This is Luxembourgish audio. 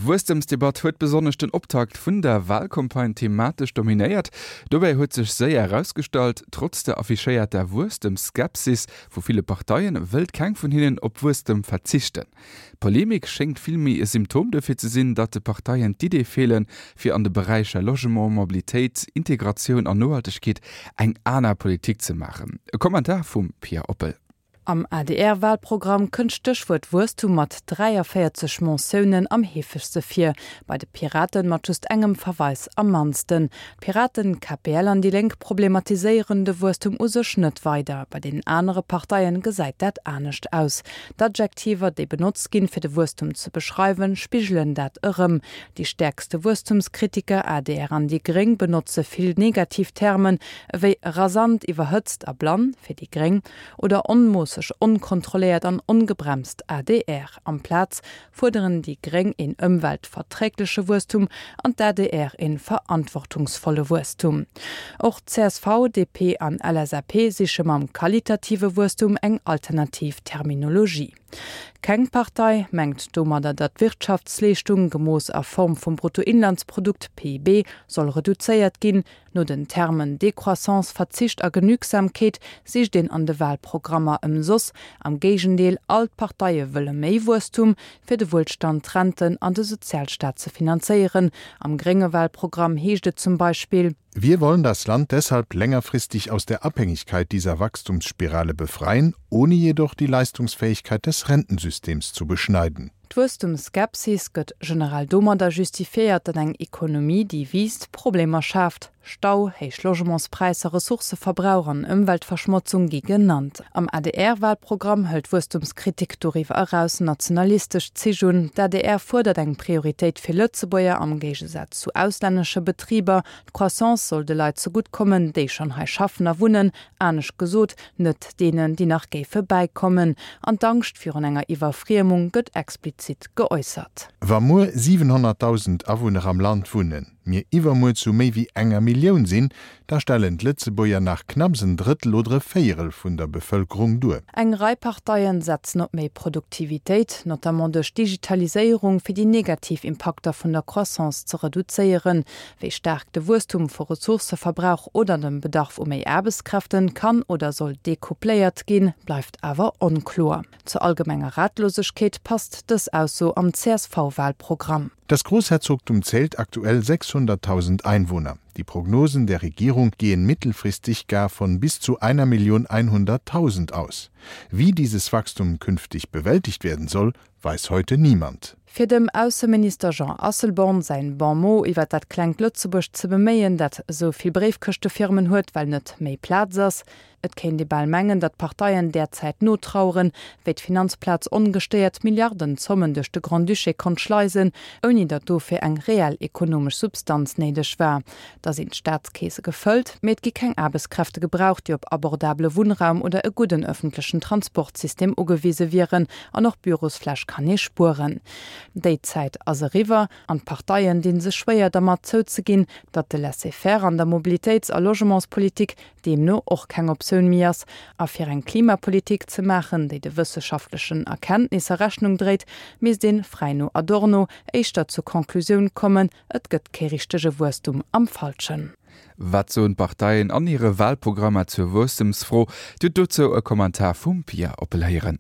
D'Wuesstemsdebatt huet besonnesch den Optakt vun der Walcampagne thematesch dominéiert. Dobäi huet sech séier erausgestallt, Trotz der affichéierter Wuesstemsskepsis vu ville Parteien, wëllt keng vun hinnen op Wuesstem verzichten. D'Polemik schéngt vill méi e Symptom dofir ze sinn, datt de Parteien d'Iddee feelen, fir an de Beräicher Logement, Mobilitéit, Integratioun an Nohaltegkeet eng aner Politik ze maachen. E Kommentar vum Pia Oppel. Am ADR-Walprogramm kënnt d'Stéchwuert Wuesstum mat 43 Mentiounen am heefegste vir, bei de Piraten mat just engem Verweis am mannsten. D'Piraten, KPL an déi Lénk problematiséieren de Wuesstum u sech net weider. Bei deenen anere Parteien gesäit dat anescht aus. D'Adjektiver, déi benotzt ginn, fir de Wuesstum ze beschreiwen, spigelen dat erëm. Déi stäerkste Wuesstumskritiker, adr an déi gréng, benotze vill negativ Termen, ewéi rasant, iwwerhëtzt a blann, fir déi gréng, oder onmoosseg, onkontrolléiert an ongebremst, adr. Amplaz fuerderen déi gréng een ëmweltverträgleche Wuesstum an d'ADR een verantwortungsvolle Wuesstum. Och csv, DP an LSAP siche mam qualitative Wuesstum eng alternativ Terminologie. Keng Partei mengt domadder, datt d'Wirtschaftsleeschtung, gemooss a Form vum Bruttoinlandsprodukt, PIB, soll reduzéiert ginn, No den Termen Décroissance, Verzicht a Genügsamkeet sicht een an de Wahlprogrammer ëmsoss. Am Géigendeel, all d'Parteie wëlle méi Wuesstum, fir de Wuelstand, d'Renten an de Sozialstaat ze finanzéieren. Am grénge Wahlprogramm heescht et zum Beispill. Wir wollen das Land deshalb längerfristig aus der Abhängigkeit dieser Wachstumsspirale befreien, ohne jedoch die Leistungsfähigkeit des Rentensystems zu beschneiden. D'Wuesstumsskepsis gëtt generell domadder justifiéiert, datt eng Ekonomie, déi wiisst, Problemer schaaft. Stau, héich Logementspräisser, Ressourcëverbrauch an Ëmweltverschmotzung gi genannt. Am ADR-Walprogramm hëlt d'Wuesstumskritik doriwwer eraus nationalistesch Zich un. D'ADR fuerdert eng Prioritéit fir Lëtzebuerger am Géigesaz zu auslännesche Betriber. D'Croissance soll de Leit zegutt kommen, déi schonn hei schaffen a wunnen, anescht gesot, net deenen, déi nach géife bäikommen. An d'Angscht virun enger Iwwerfriemung gëtt explizit geäussert. Wa muer 700.000 Awunner am Land wunnen, mir iwwermuer zu méi wéi enger Millioun sinn, da stellen d'Lëtzebuerger nach knapps en Drëttel oder e Véierel vun der Bevëlkerung duer. Eng Rei Parteien setzen op méi Produktivitéit, notamment duerch Digitaliséierung, fir déi negativ Impakter vun der Croissance ze reduzéieren. Wéi staark de Wuesstum vu Ressourcëverbrauch oder dem Bedarf u méi Aarbechtskräften kann oder soll decoupléiert ginn, bleift awer onkloer. Zur allgemenger Ratlosegkeet passt dës Ausso am CSV-Wahlprogramm. Das Großherzogtum zählt aktuell 600.000 Einwohner. Die Prognosen der Regierung gehen mittelfristig gar von bis zu 1.100.000 aus. Wie dieses Wachstum künftig bewältigt werden soll, weiß heute niemand. Fir dem Ausseminister Jean Asselborn säin Bon mot iwwer dat klengt Lëtzebuerg ze beméien, dat esou vill Bréifkëschtefirmen huet, well net méi Plaz ass. Et kéint ee bal mengen, datt d'Parteien därzäit notraueren, wéi d'Finanzplaz ongestéiert Milliardenzommen duerch de Grand-Duché konnt schleisen, ouni datt dofir eng reell ekonomesch Substanz néideg war. Da sinn d'Staatskeese gefëllt, mee et gi keng Aarbechtskräfte gebraucht, déi op abordabele Wunnraum oder e gudden ëffentlechen Transportsystem ugewise wieren. An och Bürosfläch kann ee spueren. Déi Zäit ass eriwwer an d'Parteien dinn sech schwéier dermat zouzeginn, datt de Laisser-faire an der Mobilitéits a Logementspolitik deemno och keng Optioun méi ass. A fir eng Klimapolitik ze maachen, déi de wësseschaftlechen Erkenntnisser Rechnung dréit, misst een, fräi no Adorno, éischter zur Conclusioun kommen, Et gëtt kee richtege Wuesstum am Falschen. Wat soen d'Parteien an hire Walprogrammer zur Wuesstemsfro? Dir hutt dozou e Kommentar vum Pia Oppel héieren.